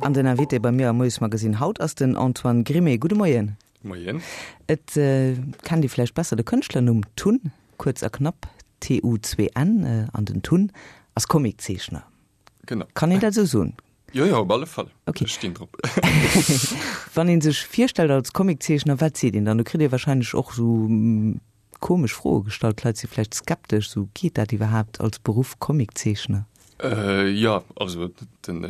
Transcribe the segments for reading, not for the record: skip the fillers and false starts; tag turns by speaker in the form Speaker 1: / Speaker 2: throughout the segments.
Speaker 1: An den Invité bei mir am Moiesmagazine haut ass den Antoine Grimé. Gudde Moien.
Speaker 2: Moien.
Speaker 1: Et kennt ee vläicht besser de Kënschtlernumm Tun, kuerz a knapp T-U-N, an den Tun ass Comiczeechner.
Speaker 2: Genau.
Speaker 1: Kann een dat esou soen?
Speaker 2: Jo, jo, op alle Fall.
Speaker 1: Okay.
Speaker 2: Ech stinn drop.
Speaker 1: Wann ee sech virstellt als Comiczeechner, wat seet een dann? Do kritt ee warscheinlech och esou komesch Froe gestallt. D'Leit si vläicht skeptesch, esou, geet dat iwwerhaapt als Beruff, Comiczeechner?
Speaker 2: Jo, also den,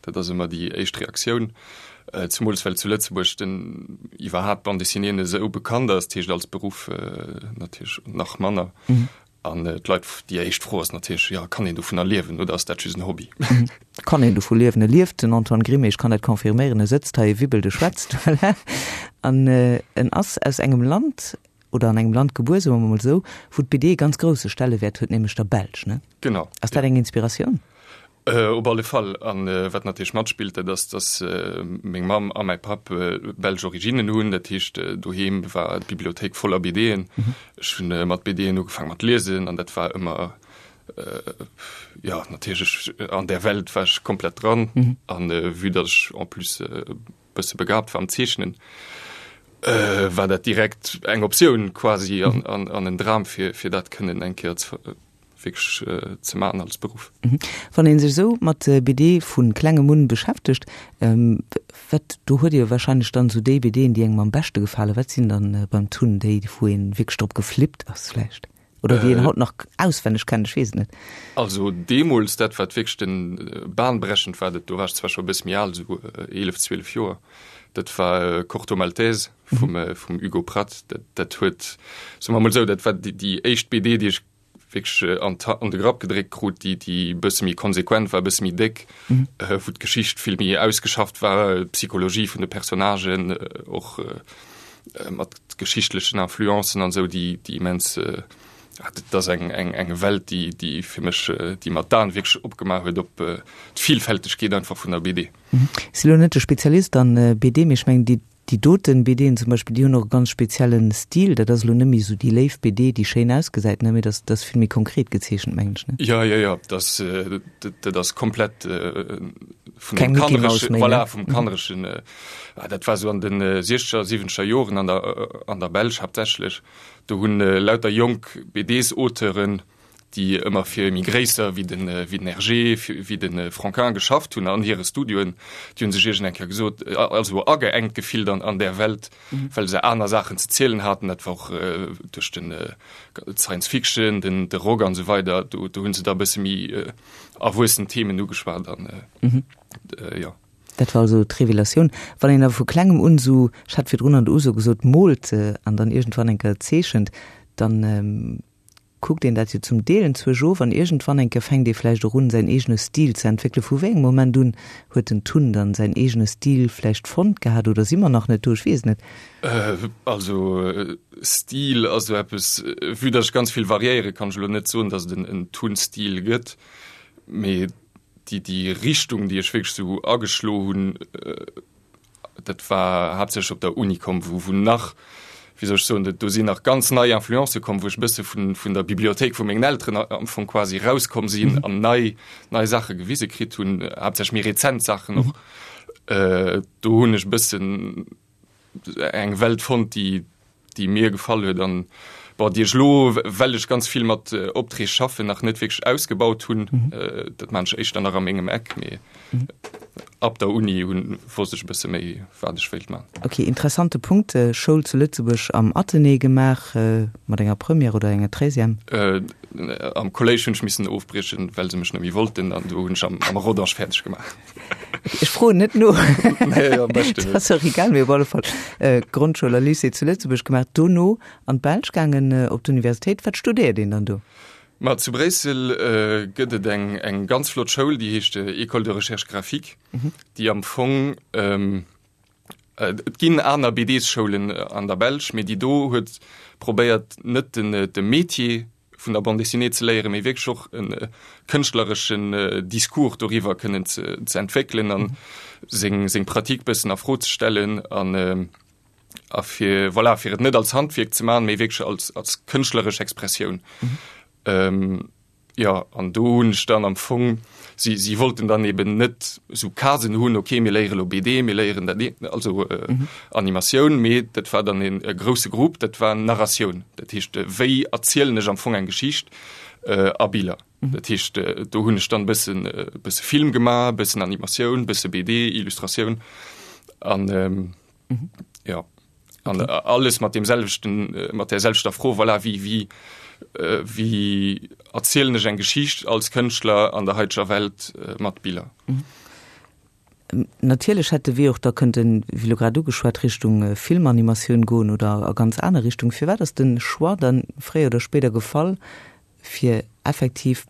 Speaker 2: dat ass ëmmer déi éischt Reaktioun. Zemools well zu Lëtzebuerg den iwwerhaapt Bande dessinée net esou bekannt ass, dat heescht als Beruff natierlech nach manner. An d'Leit, déi éischt Fro ass natierlech, jo, kann een dovunner liewen oder ass dat just en Hobby?
Speaker 1: Kann een dovu liewen? E lieft, den Antoine Grimé, ech kann dat confirméieren, e sëtzt hei, e wibbelt, e schwätzt, voilà. An en ass aus engem Land, oder an engem Land gebuer, soe mer mol esou, wou d'BD e ganz grousse Stellewäert huet, nämlech der Belsch, ne?
Speaker 2: Genau.
Speaker 1: Ass dat eng Inspiratioun?
Speaker 2: Op alle Fall. An wat natierlech matspillt, dat ass, dass meng Mamm a mäi Papp belsch Originnen hunn. Dat heescht, doheem war d'Bibliothéik voller BDen. Ech hunn mat BDen ugefaang mat liesen an dat war ëmmer, jo, natierlech an där Welt war ech komplett dran. An vue dass ech en plus e bësse begabt war am Zeechnen, war dat direkt eng Optioun quasi an en Dram fir dat kënnen eng Kéier ze wierklech ze maachen als Beruff.
Speaker 1: Wann ee sech esou mat BD vu klengem un beschäftegt, wat, do huet ee jo wahrscheinlech dann esou déi BDen, déi engem am beschte gefalen. Wat sinn dann beim Tun déi, wou ee wierklech drop geflippt ass vläicht? Oder déi een haut nach auswenneg kennt, ech weess et net.
Speaker 2: Also deemools, dat wat wierklech den bahnbrechend war, dat do war ech zwar scho e bësse méi al, esou 11, 12 Joer, dat war Corto Maltese vum vum Hugo Pratt. Dat dat huet, soe mer emol esou, dat war déi déi éischt BD, déi ech wierklech an an de Grapp gedréckt krut, déi déi e bësse méi konsequent war, e bësse méi déck, wou d'Geschicht vill méi ausgeschafft war, d'Psychologie vun de Personnagen och mat geschichtlechen Influencen an esou, déi déi immens, dat ass eng eng eng Welt, déi déi fir mech, déi mer d'Aen wierklech opgemaach huet op d'Villfältegkeet einfach vun der BD.
Speaker 1: Ech si lo net de Spezialist an BD, mee ech mengen déi Déi doten BDen zum Beispill, déi hunn och e ganz speziellen Stil. Dat ass elo net méi esou déi léif BD, déi schéin ausgesäit, ne, mee dat ass vill méi konkret gezeechent, mengen ech, ne?
Speaker 2: Jo, jo, jo, dat ass, dat ass komplett vun
Speaker 1: Keng
Speaker 2: dem
Speaker 1: Mickey Mouse
Speaker 2: kannereschen,
Speaker 1: méi, ne?
Speaker 2: voilà, vum kannereschen, dat war esou an de siechzeger, siwwenzeger Joren an der, an der Belsch haaptsächlech. Do hunn lauter jonk BDs-Auteuren, déi ëmmer fir méi gréisser wéi den wéi den Hergé, wéi de Franquin geschafft hunn an hire Studioen, déi hunn sech iergend eng Kéier gesot, also ageengt gefillt an an där Welt, well se aner Saachen ze zielen haten. Dat war och duerch den d'Science Fiction, den de Rock an esou weider, do do hunn se da e bësse méi erwuessen Themen ugeschwat an jo.
Speaker 1: Dat war also d'Revelatioun. Wann een awer vu klengem un esou, ech hat virdrun an der Uso gesot, moolt an dann iergendwann eng Kéier zeechent, dann kuckt een dat jo zum Deel enzwousch of an iergendwann eng Kéier fänkt ee vläicht och un, säin eegene Stil ze entwéckelen. Vu wéi engem Moment un huet den Tun dann säin eegene Stil vläicht fonnt gehat oder si mer nach net do? Ech weess et net.
Speaker 2: Also Stil ass esou eppes, vue datt ech ganz vill variéiere kann ech elo net soen, datt et en Tun-Stil gëtt, mee déi déi Richtung, déi ech wierklech esou ageschlo hunn, Dat war haaptsächlech op der Uni komm, wou, wou nach, wéi soll ech soen, do sinn nach ganz nei Influencë komm, wou ech e bësse vun, vun der Bibliothéik vu mengen Elteren am Fong quasi rauskomm sinn an nei, nei Saache gewise kritt hunn, haaptsächlech méi rezent Saachen och. Do hunn ech e bëssen eng Welt fonnt, déi, déi mir gefall huet an bon, déi ech elo, well ech ganz vill mat Opträg schaffen, nach net wierklech ausgebaut hunn. Dat maan ech éischter nach a mengem Eck, mee ab der Uni hunn wosst ech e bësse méi, wat ech wéilt man.
Speaker 1: Ok, interessante Punkt. Schoul zu Lëtzebuerg am Athenée gemaach, mat enger Première oder enger Treizième?
Speaker 2: Am Kolléisch hunn ech missen ofbriechen, well se mech net méi wollten an do hunn ech am Rodange fäerdeg gemaach.
Speaker 1: Ech froen net no.
Speaker 2: Nee, am beschten net.
Speaker 1: Dat ass och egal, mee op alle Fall Grondschoul a Lycée zu Lëtzebuerg gemaach, dono an d'Belsch gaangen op d'Universitéit. Wat studéiert een dann do?
Speaker 2: Ma zu Bréissel gëtt et eng, eng ganz flott Schoul, déi heescht École de recherche graphique, déi am Fong, Et ginn aner BDs-Schoulen an der Belsch, mee déi do huet probéiert net den de Métier vun der Bande dessinée ze léieren, mee wierklech och e kënschtlereschen Discours doriwwer kënnen ze ze entwéckelen an seng seng Pratique bëssen a Fro ze stellen an a fir voilà fir et net als Handwierk ze maachen, mee wierklech als als kënschtleresch Expressioun. Jo, an do hunn ech dann am Fong, si, si wollten dann eben net esou Casen hunn, okay, mir léiere lo BD, mir léieren dat eent, also Animatioun, mee dat war dann een e grousse Grupp, dat war Narratioun. Dat heescht, wéi erzielen ech am Fong eng Geschicht a Biller. Dat heescht, do hunn ech dann e bëssen, e bësse Film gemaach, e bëssen Animatioun, e bësse BD, Illustratioun an jo. An okay. alles mat dem selwechten äh, mat der selwechter Fro voilà, wie wie äh, wie erzielen ech eng Geschicht als Kënschtler an der heiteger Welt äh, mat Biller.
Speaker 1: Mhm. Natierlech hätt de Wee och da kënnten, wéi elo grad ugeschwat, Richtung äh, Filmanimatioun goen oder a ganz aner Richtung. Firwat ass de Choix dann fréier oder spéider gefall, fir effektiv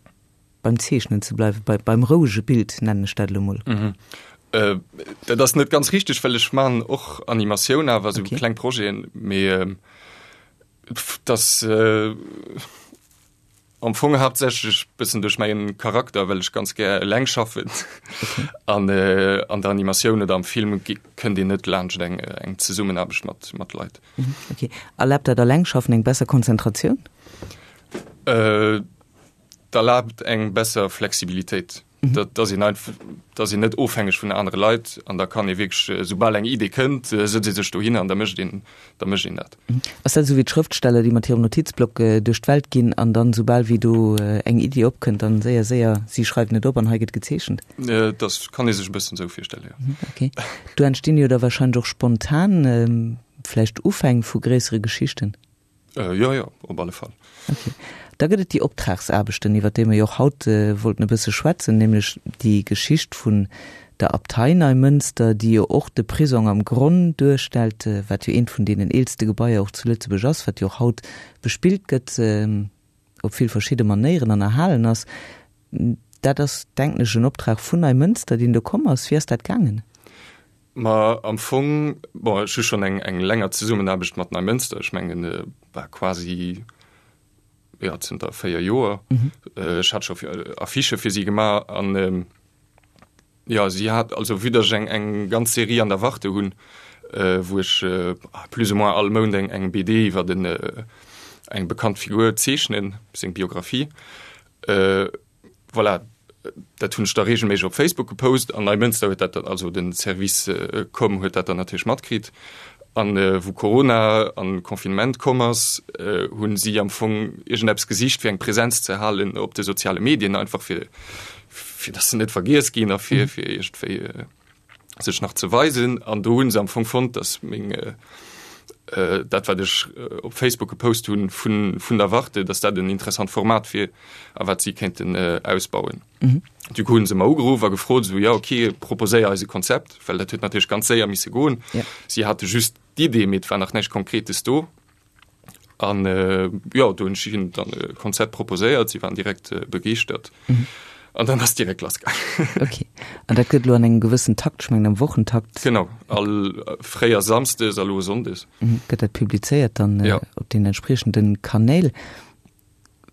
Speaker 1: beim Zeechnen ze bleiwen, bei, beim rouege Bild, nennen ech dat elo mol.
Speaker 2: Mhm. Äh, dat ass net ganz richteg, well ech man och Animatioun awer sou okay. kleng Projeten, mee äh, das äh, am Fong haaptsächlech bëssen duerch mäin Charakter, well ech ganz gär eleng schaffen. Okay. An äh, an der Animatioun oder am Film kënnt een net laanscht eng, eng Zesummenaarbecht mat, mat Leit.
Speaker 1: Mhm. Okay. Erlaabt dat Allengschaffen eng besser Konzentratioun?
Speaker 2: Äh, D'erlaabt eng besser Flexibilitéit, dat ass een einfach, dat ass een net ofhängeg vun anere Leit an da kann ee wierklech, soubal eng Idee kënnt, sëtzt ee sech dohinner an da mécht een, da mécht een dat.
Speaker 1: Ass dat esou wéi d'Schrëftsteller, déi mat hirem Notizblock duerch d'Welt ginn an dann, soubal wéi do eng Iddi opkënnt, dann séier, séier, si schreiwen et op an hei gëtt gezeechent?
Speaker 2: Dat kann ee sech e bëssen esou virstellen, jo.
Speaker 1: Ok. Do entstinn jo da wahrscheinlech och spontan vläicht Ufäng vu gréissere Geschichten?
Speaker 2: Äh, jo, jo, op alle Fall.
Speaker 1: Okay. Da gëtt et déi Optragsaarbechten, iwwer déi mer jo och haut wollten e bësse schwätzen, nämlech déi Geschicht vun der Abtei Neimënster, déi jo och de Prisong am Gronn duerstellt, wat jo eent vun deenen eelste Gebaier och zu Lëtzebuerg ass, wat jo och haut bespillt gëtt op vill verschidde Manéieren an erhalen ass. Dat ass, denken ech, en Optrag vun Neimënster, deen do komm ass. Wéi ass dat gaangen?
Speaker 2: Ma am Fong, bon, ech hu schonn eng, eng länger Zesummenaarbecht mat Neimënster, ech mengen, bah, quasi, jo, zënter 4 Joer. Ech hat scho Affichë fir si gemaach an, jo, si hat, also vue dass ech eng, eng ganz Serie an der Warte hunn, wou ech plus ou moins all Mount eng, eng BD iwwer en, eng bekannt Figur zeechnen, seng Biographie, Voilà, dat hunn ech da reegelméisseg op Facebook gepost an Neimënster huet dat dann, also den Service Com huet dat dann natierlech matkritt. An wou Corona an Confinement komm ass, hunn si am Fong iergendeppes gesicht fir eng Präsenz ze halen op de soziale Medien, einfach fir fir dass se net vergiess ginn a fir fir iergendwéi sech nach ze weisen. An do hunn se am Fong fonnt, dass meng dat wat ech op Facebook gepost hunn vun vun der Warte, dass dat en interessant Format wier a wat si kéinten ausbauen. Mhm. Du coup hunn se mer ugeruff a gefrot esou, ja okay, proposéier eis e Konzept, well dat huet natierlech ganz séier misse goen. Ja. Si hate just d'Idee, mee et war nach näischt Konkretes do. An jo, do hunn ech hinnen dann e Konzept proposéiert, si waren direkt begeeschtert. An dann ass direkt lass gaangen.
Speaker 1: Okay. An dat gëtt elo an engem gewëssen Takt, ech mengen am Wochentakt.
Speaker 2: Genau, all fréier Samsdes a lo Sonndes.
Speaker 1: Gëtt dat publizéiert dann op den entspriechenden Kanäl.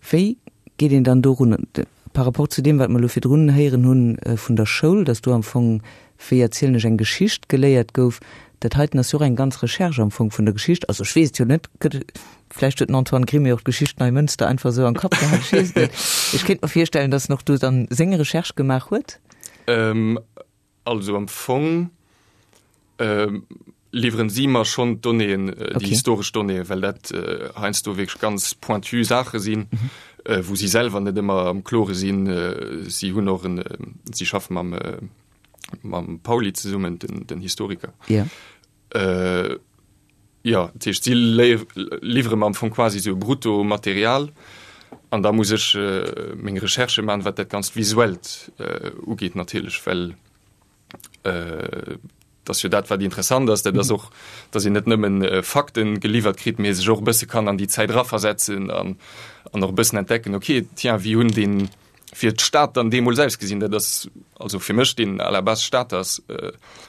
Speaker 1: Wéi geet een dann dorun, par rapport zu deem, wat mer elo virdrun héieren hunn vun der Schoul, dass do am Fong, wéi erzielen ech eng Geschicht, geléiert gouf? Dat heiten ass jo och eng ganz Recherche am Fong vun der Geschicht. Also ech weess et jo net, gëtt, vläicht huet den Antoine Grimme och d'Geschicht Neimënster einfach esou am Kapp gehat, ech weess et net. Ech kéint mer virstellen, dass en och do dann seng Recherche gemaach huet.
Speaker 2: Also am Fong liwweren si mer schonn d'Donnéeën, déi historesch Donnéeën, well dat heiansdo wierklech ganz pointu Saache sinn, wou si selwer net ëmmer am Klore sinn. Si hunn och en, si schaffe mam mam Pauly zesummen, den den Historiker. Jo, dat heescht, si liwwere mer am Fong quasi esou e Bruttomaterial an da muss ech meng Recherchë maachen, wat dat Ganzt Visuellt ugeet natierlech, well dat ass jo dat, wat interessant ass. Dat ass och, datt een net nëmmen Fakten geliwwert kritt, mee sech och e bësse kann an déi Zäit eraversetzen an an och e bëssen entdecken, okay, tiens, wéi hunn deen fir d'Stad dann deemools ausgesinn. Dat ass also fir mech, deen à la base Stater ass,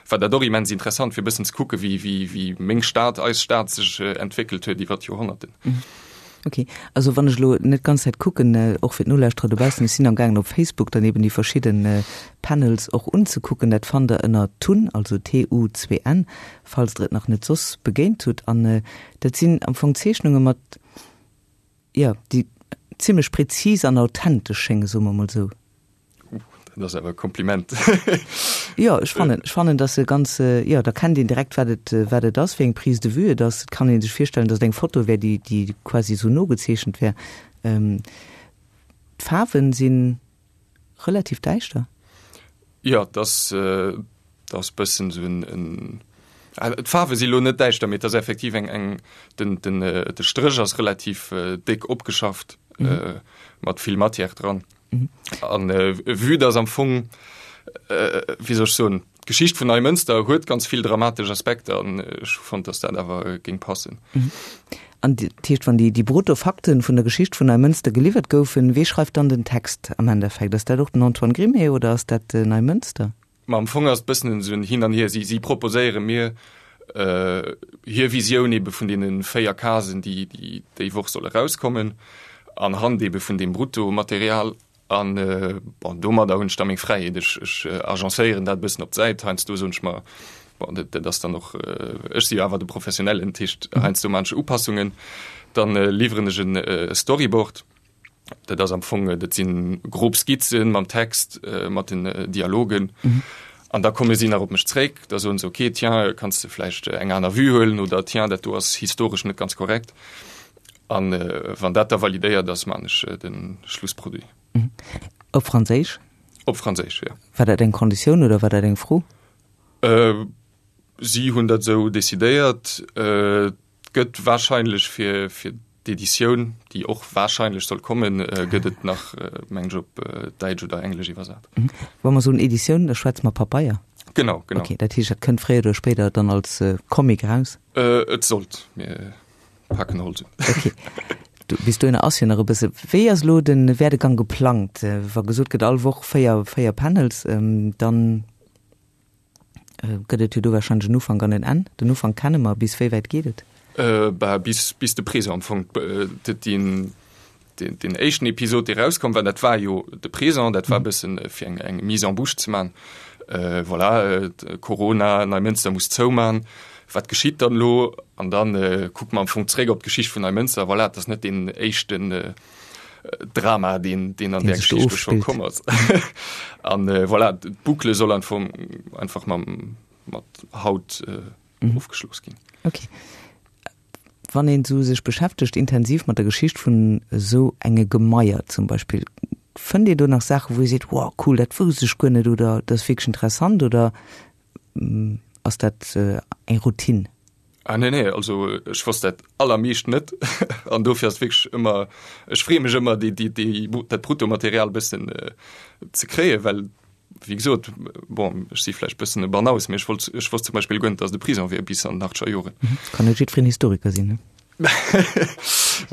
Speaker 2: war dat och immens interessant, fir e bëssen ze kucke wéi, wéi, wéi meng Stad, eis Stad sech entwéckelt huet iwwer d'Joerhonnerten.
Speaker 1: Ok, also wann ech elo net d'ganz Zäit kucken, och fir d'Nolauschterer dobaussen, ech sinn am gaangen op Facebook dann eben déi verschidde Panels och unzekucken. Dat fannt der ënner Tun, also T-U-N, falls der et nach net soss begéint hutt. An dat sinn am Fong Zeechnunge mat, Jo, déi. zimmlech präzis an authentesch schéngen, soe mer mol esou.
Speaker 2: Dat ass awer e Kompliment.
Speaker 1: Jo, ech fannen, ech fannen, dass se ganz, jo, da kennt een direkt, wat et, wat et ass, wéi eng Prise de vue et ass. Et kann ee sech virstellen, dass et eng Foto wär, déi, déi quasi esou nogezeechent wär. D'Faarwen si relativ däischter.
Speaker 2: Jo, et ass, et ass bëssen esou en, en, d'Faarwe si lo net däischter, mee et ass effektiv eng, eng, den, den, de Stréch ass relativ déck opgeschafft, mat vill Matière dran. An vue dass am Fong, wéi soll ech soen, d'Geschicht vun Neimënster huet ganz vill dramatesch Aspekter an ech hu fonnt, dass dat awer géing passen.
Speaker 1: An dat heescht, wann déi brutto Fakten vun der Geschicht vun Neimënster geliwwert goufen, wee schreift dann den Text am Endeffekt? Ass dat och den Antoine Grimée oder ass dat Neimënster?
Speaker 2: Ma am Fong ass et bëssen esou en Hin an Hier. Si, si proposéiere mir hir Visioun ebe vun deene 4 Casen, déi, déi déi Woch solle rauskommen, anhand ebe vun deem Bruttomaterial. An, bon, domadder hunn ech da meng Fräiheet. Ech, ech agencéieren dat e bëssen op d'Säit. Heiansdo soen ech mer, bon, dat, dat ass dann och, ech si jo awer de Professionellen, dat heescht, heiansdo maan ech Upassungen. Dann liwweren ech e Storyboard. Dat ass am Fong, dat sinn grob Skizzen mam Text, mat den Dialogen. An da komme si nach op mech zréck, da soen se, okay, tiens, kanns de vläicht eng aner Vue huelen oder tiens, dat do ass historesch net ganz korrekt. An wann dat da validéiert ass, maan ech de Schlussproduit.
Speaker 1: Op Franséisch?
Speaker 2: Op Franséisch, jo.
Speaker 1: War dat eng Konditioun oder war dat eng Fro?
Speaker 2: Si hunn dat esou decidéiert. Et gëtt warscheinlech fir fir d'Editioun, déi och warscheinlech soll kommen, gëtt et nach, mengen ech, op Däitsch oder Englesch iwwersat.
Speaker 1: Wa mer soen Editioun, da schwätze mer Pabeier?
Speaker 2: Genau, genau.
Speaker 1: Okay, dat heescht, dat kënnt fréier oder spéider dann als Comic eraus?
Speaker 2: Et sollt. Mir paken Holz un.
Speaker 1: Okay. Du, bis dohinner ass jo nach e bësse. Wéi ass elo de Werdegang geplangt? Wa gesot gëtt, all Woch 4, 4 Panels, dann Gëtt et jo do wahrscheinlech en Ufank an en Enn. Den Ufank kenne mer, bis wéi wäit geet et?
Speaker 2: Bah, bis, bis de Présent am Fong. Deen, deen, deen éischten Episod, dee rauskomm war, dat war jo de Présent, dat war e bëssen fir eng, eng Mise en bouche ze man. Voilà, Corona, Neimënster muss zouman, wat geschitt dann elo? An dann kucke mer am Fong zréck op d'Geschicht vun Neimënster. Voilà, et ass net deen éischten Drama, deen, deen an der Geschicht scho komm ass. An äh, voilà, d'Boucle soll einfach, einfach mam, mat Haut äh, mhm. ofgeschloss ginn.
Speaker 1: Okay. Wann een so sech beschäftegt intensiv mat der Geschicht vun esou enge Gemaier zum Beispill, fënnt Dir do nach Saachen, wou Dir seet, wow, cool, dat wousst ech guer net oder dat ass wierklech interessant oder mm, ass dat äh, eng Routine?
Speaker 2: Ah nee nee, also ech wosst dat allermeescht net an dofir ass wierklech ëmmer, ech freeë mech ëmmer déi déi déi dat Bruttomaterial bëssen ze kréien, well wéi gesot, bon ech si vläicht bëssen e Banaus, mee ech wollt ech wosst zum Beispill guer net, datt et e Prison wier bis an den achtzeger Joren.
Speaker 1: Kann net jiddwereen Historiker sinn, ne?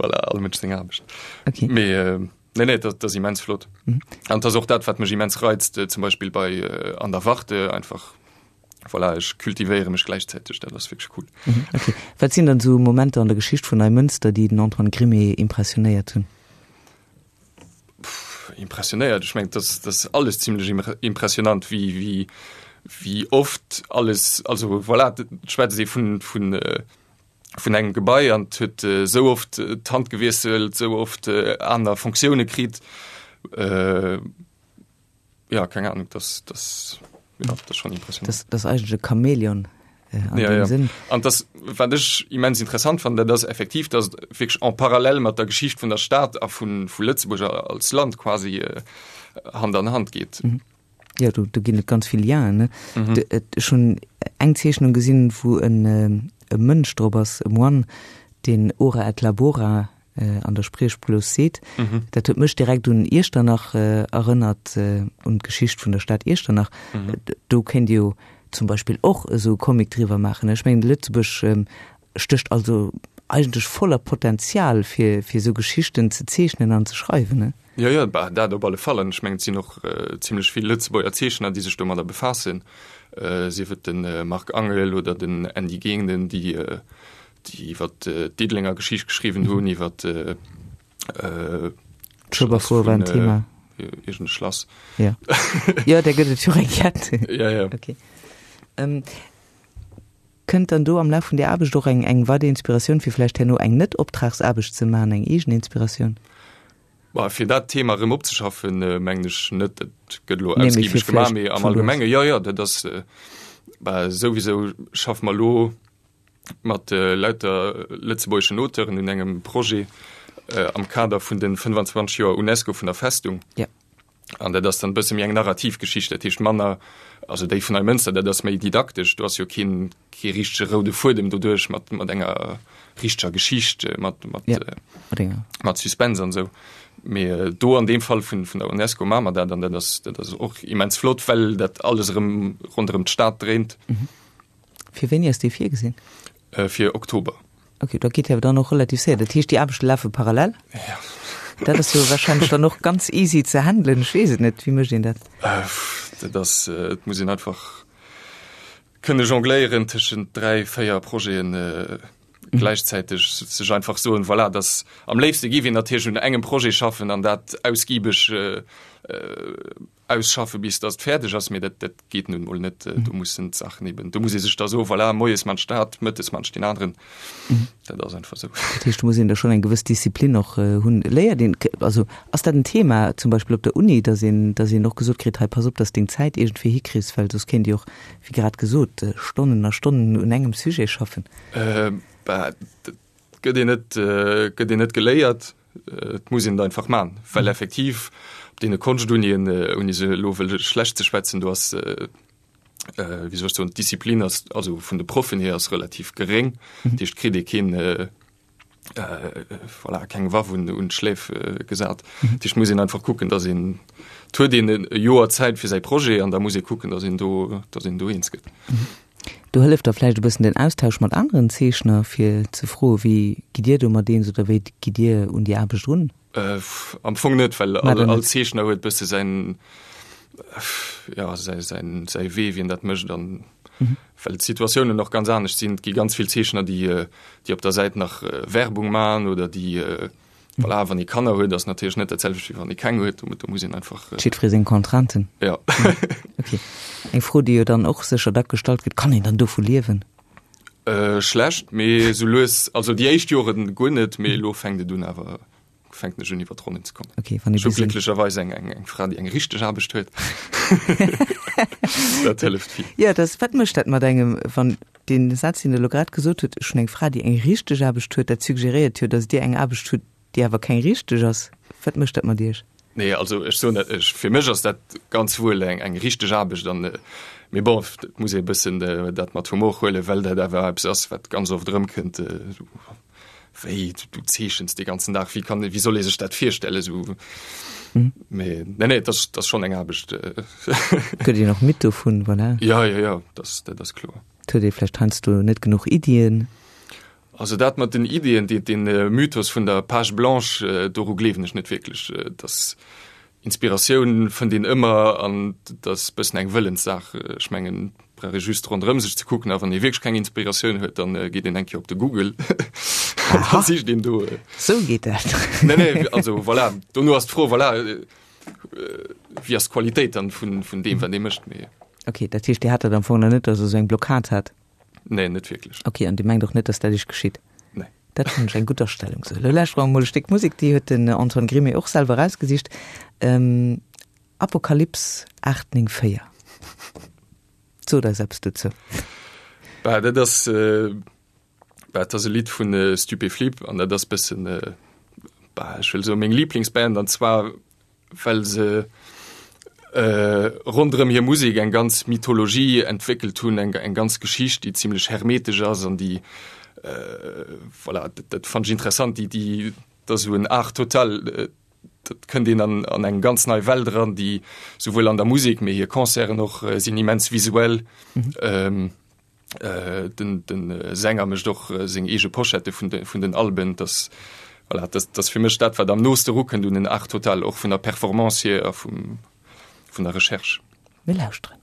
Speaker 2: Voilà, all Mënsch seng Aarbecht. Okay. Mee nee nee, dat ass immens flott. An dat ass och dat wat mech immens reizt, zum Beispill bei An der Warte einfach Voilà, ech kultivéiere mech gläichzäiteg, dat ass wierklech cool.
Speaker 1: Mhm, okay. Wat sinn dann esou Momenter an der Geschicht vun Neimënster, déi den Antoine Grimée impressionéiert hunn?
Speaker 2: Pff, impressionéiert? Ech mengen, dat ass alles zimlech impressionant, wéi, wéi, wéi oft alles, also voilà, et schwätzt ee vun, vun, vun engem Gebai an et huet esou oft d'Hand gewiesselt, esou oft aner Fonctioune kritt. Ja, keng Ahnung, das, das, ja, das schon impressionant.
Speaker 1: Das, das eigentlech e Chamäleon
Speaker 2: äh, an ja, ja. Sinn. An das, wat ech immens interessant fand, dat ass effektiv, dass wierklech en parallel mat der Geschicht vun der Stad a vun, vu Lëtzebuerg als Land quasi äh, Hand an Hand geet.
Speaker 1: Mhm. Ja, do, do ginn et ganz vill Lienen. Ne? Mhm. De, et, ech hunn eng Zeechnung gesinn, wou en, äh, e Mënsch drop ass, e Moine, deen Ora et labora an der Spriechblos seet. Dat huet mech direkt un Iechternach erënnert, un d'Geschicht vun der Stad Iechternach. Do kéint Dir jo zum Beispill och esou e Comic driwwer maachen. Ech mengen, Lëtzebuerg stécht also eigentlech voller Potenzial, fir esou Geschichten ze zeechnen an ze schreiwen.
Speaker 2: Jo, jo, bah, dat op alle Fall. An ech mengen, et sinn och zimlech vill Lëtzebuerger Zeechner, déi sech domadder befaassen, sief et de Marc Angel oder den Andy Genen, déi déi iwwer d'Diddelenger Geschicht geschriwwen hunn, iwwer
Speaker 1: D'Schueberfouer war en Thema.
Speaker 2: Iergend e Schlass.
Speaker 1: Ja. Jo, där gëtt et jo eng Kett.
Speaker 2: Ja, ja.
Speaker 1: Okay. Ähm, kënnt dann do am Laf vun där Aarbecht och eng, eng weider Inspiratioun, fir vläicht herno eng Net-Optragsaarbecht ze maachen, eng eegen Inspiratioun?
Speaker 2: Bah, fir dat Thema erëm opzeschaffen, mengen ech net. Dat gëtt elo ausgiebeg gemaach, mee am Allgemenge, jo, jo, dat ass, bah, souwisou schaffe mer elo mat lauter lëtzebuergeschen Auteuren un engem Projet am Kader vun de 25 Joer UNESCO vun der Festung.
Speaker 1: Ja.
Speaker 2: An dat ass dann e bësse méi eng narrativ Geschicht, dat heescht manner, also déi vun Neimënster, dat ass méi didaktesch, do ass jo keen, kee richtege roude Fuedem doduerch mat, mat enger richteger Geschicht, mat, mat,
Speaker 1: ja, mat, enger.
Speaker 2: mat Suspense an esou. Mee do an deem Fall vun, vun der UNESCO maache mer dat an dat ass, dat ass och immens flott, well dat alles erëm ronderëm d'Stad dréint.
Speaker 1: Mhm. Fir wéini ass dee virgesinn?
Speaker 2: Fir Oktober.
Speaker 1: Ok, dat geet jo dann och relativ séier. Dat heescht, déi Aarbechte lafe parallel?
Speaker 2: Ja.
Speaker 1: Dat ass jo wahrscheinlech dann och ganz easy ze handelen. Ech weess et net, wéi mécht een dat?
Speaker 2: Dat ass, et muss een einfach kënne jongléieren tëschent 3, 4 Projeten gläichzäiteg, sech einfach soen, voilà, dass am léifste géif een natierlech un engem Projet schaffen an dat ausgiebeg Ausschaffe bis datt et fäerdeg ass, mee dat dat geet nun emol net. Do mussen d'Saachen eben, do muss ee sech da soen, voilà, moies man ech dat, mëttes man ech deen aneren. Dat ass einfach esou.
Speaker 1: Dat heescht, do muss een da schonn eng gewëss Disziplin och hunn. Léiert een, also ass dat en Thema zum Beispill op der Uni, datt een, datt een och gesot kritt, hei pass op, datt s deng Zäit iergendwéi hikriss, well soss kéint Dir och, wéi grad gesot, Stonnen a Stonnen un engem Sujet schaffen?
Speaker 2: Bah, dat gëtt een net, gëtt een net geléiert. Et muss een et einfach man, well effektiv op deene Konschtunien, ouni se elo wëlle schlecht ze schwätzen, do ass, wéi soll ech soen, d'Disziplin ass, also vun de Proffen hier ass relativ geréng. Dat heescht, kritt ee keen, voilà, keng Waff un un d'Schläf gesat. Dat heescht, muss een einfach kucken, datt een, et huet een e Joer Zäit fir säi Projet an da muss ee kucken, datt een do, datt een do eens gëtt.
Speaker 1: Do hëlleft da vläicht e bëssen den Austausch mat aneren Zeechner, fir ze froe wéi gitt Dir domat eens oder wéi gitt Dir un déi Aarbecht erun?
Speaker 2: Am Fong net, well all Zeechner huet bësse säin, jo, säi, säin, säi Wee, wéi en dat mécht an well d'Situatiounen och ganz anescht sinn. Et gi ganz vill Zeechner, déi, déi op der Säit nach Werbung man oder déi, Voilà, wann ee Kanner huet, ass natierlech net dat selwecht wéi wann ee keng huet. Do muss een einfach.
Speaker 1: Jiddweree seng Contrainten.
Speaker 2: Ja.
Speaker 1: Okay. Eng Fro, déi jo dann och sécher dack gestallt gëtt, Kann een dann dovu liewen?
Speaker 2: Äh, schlecht, mee sou lues, also déi éischt Joren guer net, mee elo fänkt et un awer, fänken ech un iwwer d'Ronnen ze kommen.
Speaker 1: Okay, wann ee
Speaker 2: Ech hu
Speaker 1: bis en.
Speaker 2: glécklecherweis eng, eng, eng Fra, déi eng richteg Aarbecht huet. Dat hëlleft vill.
Speaker 1: Jo, dat, wat mécht dat mat engem, wann Deen Saz, deen Der elo grad gesot hutt, ech hunn eng Fra, déi eng richteg Aarbecht huet, dat suggeréiert jo, datt Dir eng Aarbecht hutt, déi awer keng richteg ass. Wat mécht dat mat Iech?
Speaker 2: Nee, also ech soen dat, ech, fir mech ass dat ganz wuel eng, eng richteg Aarbecht an, mee bon, et muss ee e bëssen dat mat Humor huelen, well dat awer eppes ass, wat ganz oft erëmkënnt, Wéi, du zeechens dee ganzen Dag, wéi kann, wéi soll ee sech dat virstellen, esou. Mee nee, nee, dat ass, dat ass schonn eng Aarbecht.
Speaker 1: Gëtt een och midd dovun, voilà.
Speaker 2: Ja, ja, ja, dat, dat ass kloer.
Speaker 1: Et huet ee vläicht heiansdo net genuch Iddien.
Speaker 2: Also dat mat den Iddien, dee, dee Mythos vun der Page blanche, doru gleewen ech net wierklech. Dass Inspiratioun fënnt een ëmmer an dat ass bëssen eng Wëllenssaach. Ech mengen, et brauch ee just ronderëm sech ze kucken a wann ee wierklech keng Inspiratioun huet, dann geet een eng Kéier op de Google an da sicht een do.
Speaker 1: Sou geet dat.
Speaker 2: Nee, nee, also voilà, dono ass d'Fro, voilà, wéi ass d'Qualitéit dann vun, vun deem, wat ee mécht, mee.
Speaker 1: Ok, dat heescht, Dir hat dat am Fong nach net, datt Der sou eng Blockad hat?
Speaker 2: Nee, net wierklech.
Speaker 1: Ok, an Dir mengt och net, datt dat Iech geschitt?
Speaker 2: Nee.
Speaker 1: Dat fannen ech eng gutt Astellung. Sou, elo lauschtere mer emol e Stéck Musek, déi huet den Antoine Grimé och selwer erausgesicht, Apokalypse 894. Sot eis eppes dozou.
Speaker 2: Bah, dat ass, bah, dat ass e Lidd vun Stupéflip an dat ass bëssen, bah, ech wëll soen, meng Liblingsband an zwar well se ronderëm hir Musek eng ganz Mythologie entwéckelt hunn, eng eng ganz Geschicht, déi zimlech hermetesch ass an déi, voilà, dat dat fannen ech interessant, déi déi dat ass esou en Art total, dat kënnt een an an eng ganz nei Welt eran, déi souwuel an der Musek, mee hir Concerten och sinn immens visuell. Den den Sänger mécht och seng eege Poschette vun de vun den Alben. Dass voilà, dat ass fir mech dat wat am nooste erukënnt un en Art total, och vun der Performance hier a vum vun der Recherche.
Speaker 1: Mir lauschteren.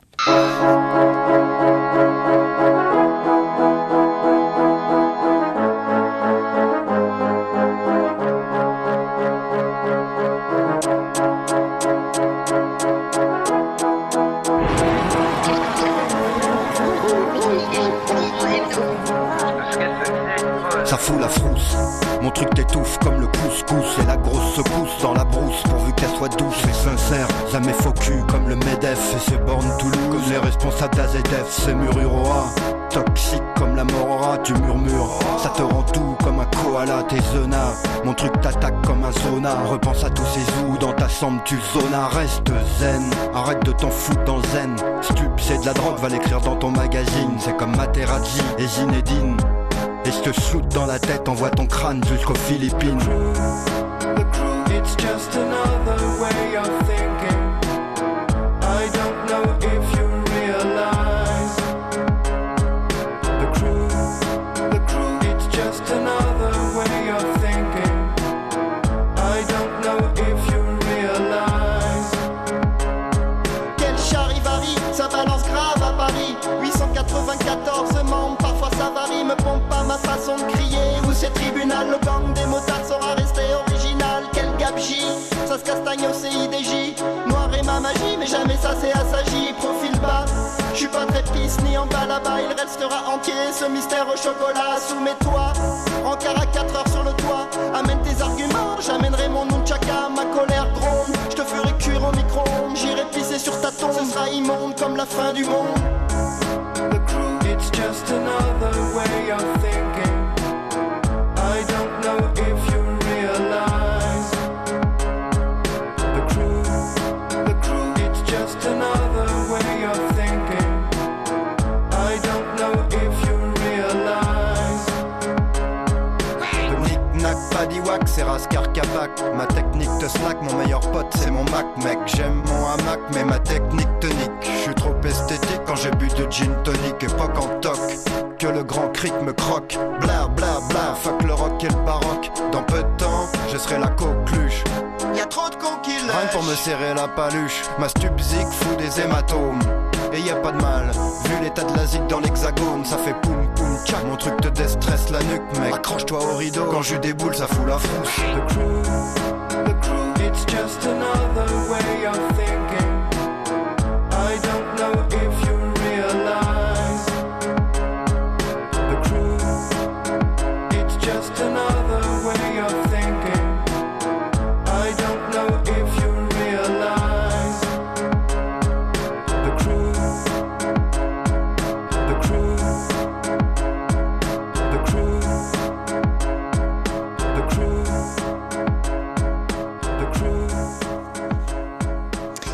Speaker 3: fout la frousse. Mon truc t'étouffe comme le couscous et la grosse secousse dans la brousse pourvu qu'elle soit douce et sincère. Ça met faux cul comme le MEDEF et ses bornes Toulouse. Comme les responsables d'AZF, c'est Mururoa. Toxique comme la morora, tu murmures. Ça te rend tout comme un koala, t'es zona. Mon truc t'attaque comme un zona. Repense à tous ces zoos dans ta chambre, tu zona. Reste zen, arrête de t'en foutre dans zen. Stup, c'est de la drogue, va l'écrire dans ton magazine. C'est comme Materazzi et Zinedine. Et je te shoot dans la tête, envoie ton crâne jusqu'aux Philippines.
Speaker 4: The crew, it's just another way of thinking. I don't know if you realize. The crew, the crew, it's just another way of thinking. I don't know if you realize.
Speaker 5: Quel charivari, ça balance grave à Paris 894 membres, parfois ça varie Me pompe pas ma façon de crier Ou c'est tribunal, le gang des motards saura rester original Quel gabegie, ça se castagne au CIDJ Noir est ma magie, mais jamais ça s'est assagi Profil bas, je suis pas très pisse ni en bas là-bas Il restera entier ce mystère au chocolat Soumets-toi, rencard à 4 heures sur le toit Amène tes arguments, j'amènerai mon nunchaka Ma colère gronde, je te ferai cuire au micro-ondes J'irai pisser sur ta tombe, ce sera immonde comme la fin du monde
Speaker 4: The crew, it's just another way of thinking. I don't know if you realize. The crew, the crew, it's just another way of thinking. I don't know if you realize.
Speaker 3: Nick nack paddywhack, c'est Rascar Capac. Ma technique te slack, mon meilleur pote c'est mon Mac, mec. J'aime mon hamac, mais ma technique te nique. Je suis trop esthétique quand j'ai bu du gin tonic et pas qu'en toc. Que le grand cric me croque. Bla bla bla, fuck le rock et le baroque. Dans peu de temps, je serai la coqueluche.
Speaker 5: Y'a trop de cons qui
Speaker 3: Rien que pour me
Speaker 5: lèchent.
Speaker 3: serrer la paluche, ma stupzik fout des hématomes. Et y a pas de mal, vu l'état de la zik dans l'hexagone, ça fait poum poum tchac. Mon truc te déstresse la nuque, mec. Accroche-toi au rideau, quand je déboule, ça fout la frousse.
Speaker 4: The crew, the crew, it's just another way of thinking. I don't know if you realize. The crew, it's just another way of thinking. I don't know if you realize. The crew, the crew, the crew, the crew, the crew,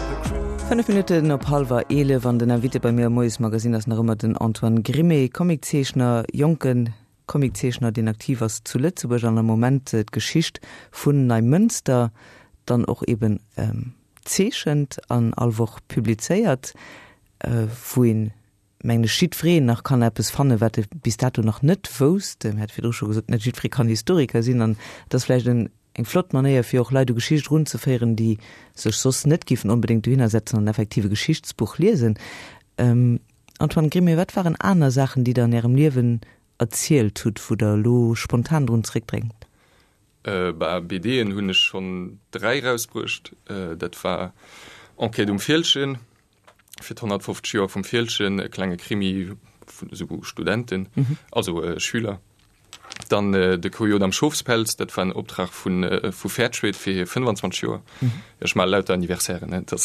Speaker 4: the crew.
Speaker 1: 5 Minutten op hallwer 11 an den Invité bei mir am Moiesmagazin ass nach ëmmer den Antoine Grimé, Comiczeechner, jonke Comiczeechner, deen aktiv ass zu Lëtzebuerg an am Moment d'Geschicht vun Neimënster dann och eben zeechent an all Woch publizéiert, wou een, mengen ech, jiddwereen nach kann eppes fannen, wat e bis dato nach net wousst. Mir hate virdru scho gesot, net jiddweree kann Historiker sinn an et ass vläicht en eng flott Manéier, fir och Leit u Geschicht erunzeféieren, déi sech soss net géifen onbedéngt dohinner setzen an effektiv e Geschichtsbuch liesen. Antoine Grimé, wat waren aner Saachen, déi Der an Ärem Liewen erzielt hutt, wou Der elo spontan drun zréckdrénkt?
Speaker 2: Bah, BDen hunn ech schonn 3 rausbruecht. Dat war Enquête um Fieldgen, fir d'150 Joer vum Fieldgen, e klenge Krimi vun esou Studenten, also Schüler. Dann De Kojot am Schofspelz, dat war en Optrag vu vu Fairtrade fir hir 25 Joer. Ech maache lauter Anniversairen, ne? Dat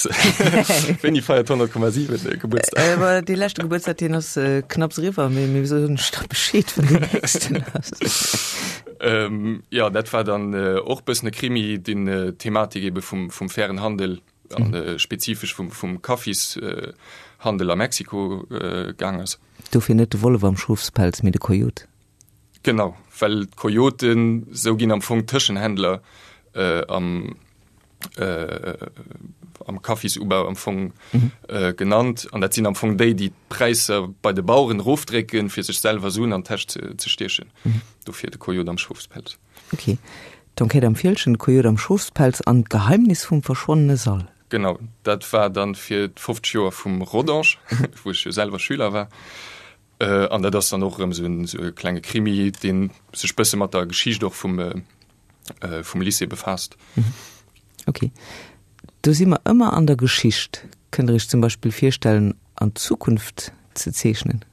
Speaker 2: wéini feiert 100,7 Gebuertsdag?
Speaker 1: Dee leschte Gebuertsdag, deen ass knapps eriwwer, mee mir soen lech da Bescheed, wann deen nächsten ass.
Speaker 2: Jo, dat war dann och e bëssen e Krimi, deen d'Thematik ebe vum vum fairen Handel an spezifesch vum vum Kaffishandel a Mexiko gaang ass.
Speaker 1: Dofir net de Wollef am Schofspelz, mee de Kojot.
Speaker 2: Genau, well d'Kojoten, sou ginn am Fong d'Tëschenhändler am am Kaffisubau am Fong genannt. An dat sinn am Fong déi, déi d'Präisser bei de Baueren erofdrécken, fir sech selwer Suen an d'Täsch ze stiechen. Dofir de Kojot am Schofspelz.
Speaker 1: Ok. D'Enquête am Fieldgen, de Kojot am Schofspelz an d'Geheimnis vum verschwonnene Sall.
Speaker 2: Genau, dat war dann fir d'50 Joer vum Rodange, wou ech jo selwer Schüler war. An dat ass dann och erëm esou en esou e klenge Krimi, dee sech bësse mat der Geschicht och vum vum Lycée befaasst.
Speaker 1: Ok. Do si mer ëmmer an der Geschicht. Kënnt Der Iech zum Beispill virstellen, an d'Zukunft ze zeechnen?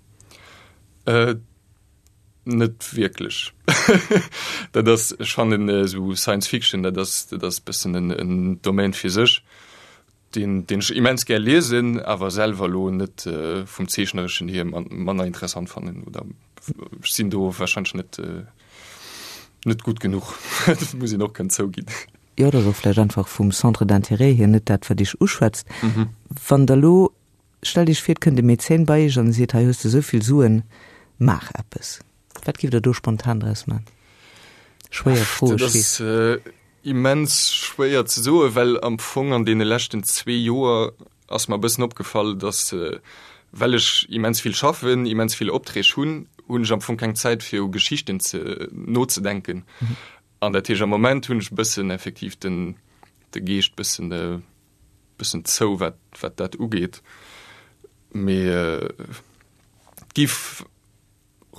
Speaker 2: Net wierklech. Dat ass, ech fannen esou Science Fiction, dat ass, dat ass bëssen en, en Domaine fir sech, deen, deen ech immens gär liesen, awer selwer elo net vum Zeechnereschen hier manner interessant fannen oder ech sinn do warscheinlech net, net gutt genuch. Dat muss een och kënnen zouginn.
Speaker 1: Jo, dat ass och vläicht einfach vum Centre d'intérêt hier net dat, wat Iech uschwätzt. Wann Der elo Stellt Iech vir, et kënnt e Mäzen bei Iech an e seet, hei hues de esou vill Suen, maach eppes. Wat giff Der do spontan draus man? Schwéier Fro,
Speaker 2: ech weess. Dat ass immens schwéier ze soen, well am Fong an deene leschten zwee Joer ass mer e bëssen opgefall, datt, well ech immens vill schaffen, immens vill Opträg hunn, hunn ech am Fong keng Zäit fir u Geschichten ze nozedenken. An dat heescht, am Moment hunn ech e bëssen effektiv den de Geescht bëssen bëssen zou wat wat dat ugeet, mee et giff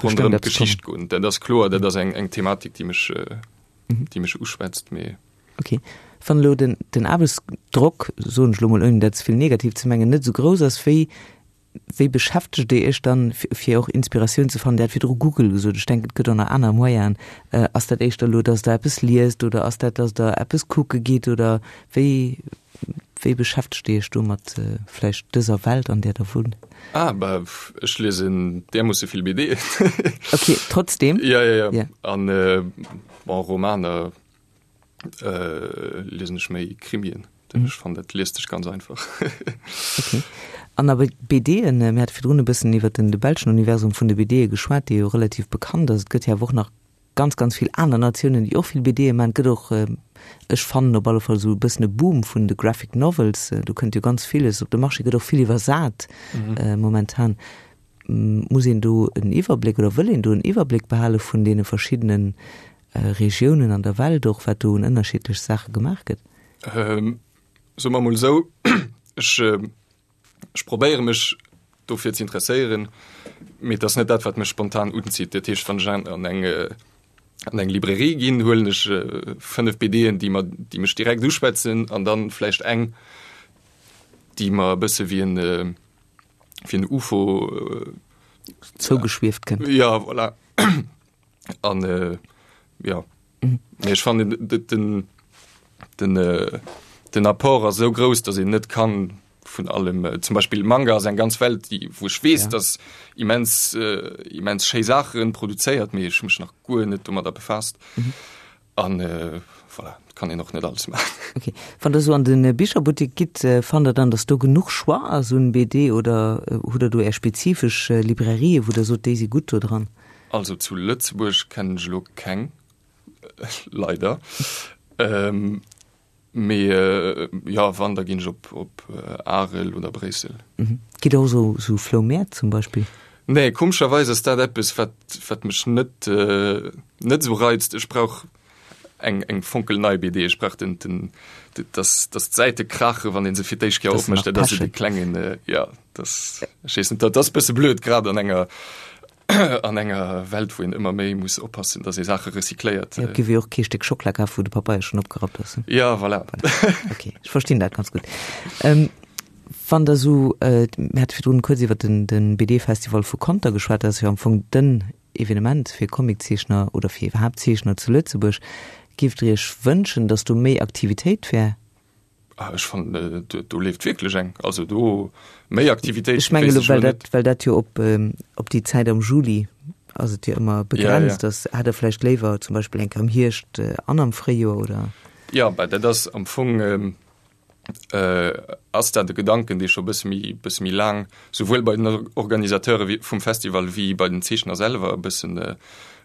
Speaker 2: ronderëm d'Geschicht goen, dat ass kloer, dat ass eng eng Thematik déi mech déi mech uschwätzt, mee.
Speaker 1: Ok, wann elo den den Aarbechtsdrock, soen ech elo mol ouni dat ze vill negativ ze mengen, net esou grouss ass, wéi Wéi beschäftegt Dir Iech dann, fir och Inspiratioun ze fannen? Dir hat virdru Google gesot, ech denken, et gëtt och nach aner Moyenen. Ass dat éischter elo, dass Der eppes liest oder ass dat, dass Der eppes kucke gitt oder wéi, wéi beschäftegt Dir Iech do mat vläicht dëser Welt, an där Der wunnt?
Speaker 2: Ah, bah, ech liesen därmoosse vill BDen.
Speaker 1: Ok, trotzdem.
Speaker 2: Ja, ja, ja. An, bon, Romaner. Liesen ech méi Krimien. Mhm. Ech fannen dat liest sech ganz einfach.
Speaker 1: Okay. An awer BDen, mir hate virdrun e bëssen iwwer den de belschen Universum vun de BDe geschwat, dee jo relativ bekannt ass. Et gëtt jo awer och nach ganz, ganz vill aner Natiounen, déi och vill BDe maachen. Et gëtt och, ech fannen op alle Fall esou e bëssen e Boom vun de Graphic Novels. Do kënnt jo ganz villes op de Marché, gëtt och vill iwwersat momentan. Muss een do en Iwwerbléck oder wëll een do en Iwwerbléck behale vun deene verschiddenen Regiounen an der Welt och, wat do un ënnerschiddlech Saache gemaach gëtt?
Speaker 2: Soe mer emol esou, ech, ech probéiere mech dofir ze interesséieren, mee et ass net dat, wat mech spontan unzitt. Dat heescht, wann ech an eng, an eng Librairie ginn, huelen ech 5 BDen, déi mer, déi mech direkt uschwätzen an dann vläicht eng, déi mer e bësse wéi en, wéi en UFO
Speaker 1: zougeschwieft kënnt.
Speaker 2: Ja, voilà. An äh, ja. Mhm. Ech fannen den, den, äh, den Apport ass sou grouss, datt een net kann vun allem äh, zum Beispill Manga ass eng ganz Welt, déi wou ech weess, ja. dass immens äh, immens schéi Saachen produzéiert, mee ech hu mech nach guer net domadder befaasst. Mhm. An äh, voilà, kann een och net alles maachen.
Speaker 1: Okay. Wann der sou an den Bicherbuttek gitt, äh, fannt der dann, dass do genuch Choix ass un BD oder äh, hutt der do är spezifesch äh, Librairien, wou der sot, déi si gutt do dran?
Speaker 2: Also zu Lëtzebuerg kennen ech elo keng, leider. Ähm, mee jo, wann, da ginn ech op, op Arel oder Bréissel.
Speaker 1: Mhm. Gitt der och sou, sou Floumäert zum Beispill?
Speaker 2: Nee, komescherweis ass dat eppes, wat, wat mech net, net esou reizt. Ech brauch eng, eng fonkelnei BD. Ech brauch den, den, dass, dass d'Säite krachen, wann ee se fir d'éischt Kéier opmécht. Dat ass esou de klengen, jo, dass, ech weess net, dat ass e bësse blöd, grad an enger, an enger Welt, wou een ëmmer méi muss oppassen, datt ee Saache recycléiert.
Speaker 1: Jo, et géif ee och kee Stéck Schockela kafen, wou de Papeier schonn opgerappt ass.
Speaker 2: Ja, voilà.
Speaker 1: Ok, ech verstinn dat ganz gutt. Ähm, wann Der esou, mir hate virdrun kuerz iwwer den, den BD-Festival vu Conter geschwat, dat ass jo am Fong den Evenement fir Comiczeechner oder fir iwwerhaapt Zeechner zu Lëtzebuerg. Géift Der Iech wënschen, datt do méi Aktivitéit wär?
Speaker 2: Ah, ech fannen, do leeft wierklech eng. Also do méi Aktivitéit.
Speaker 1: Ech mengen elo, well dat, well dat jo op, op déi Zäit am Juli ass et jo ëmmer begrenzt, ja, ja. Ass, hätt Der vläicht léiwer zum Beispill eng Kéier am Hierscht an am Fréijoer oder?
Speaker 2: Ja, bah, dat ass am Fong ähm, äh, ass dat e Gedanken, dee scho bësse méi, bësse méi laang souwuel bei den Organisateure vum Festival wéi bei den Zeechner selwer e bëssen äh,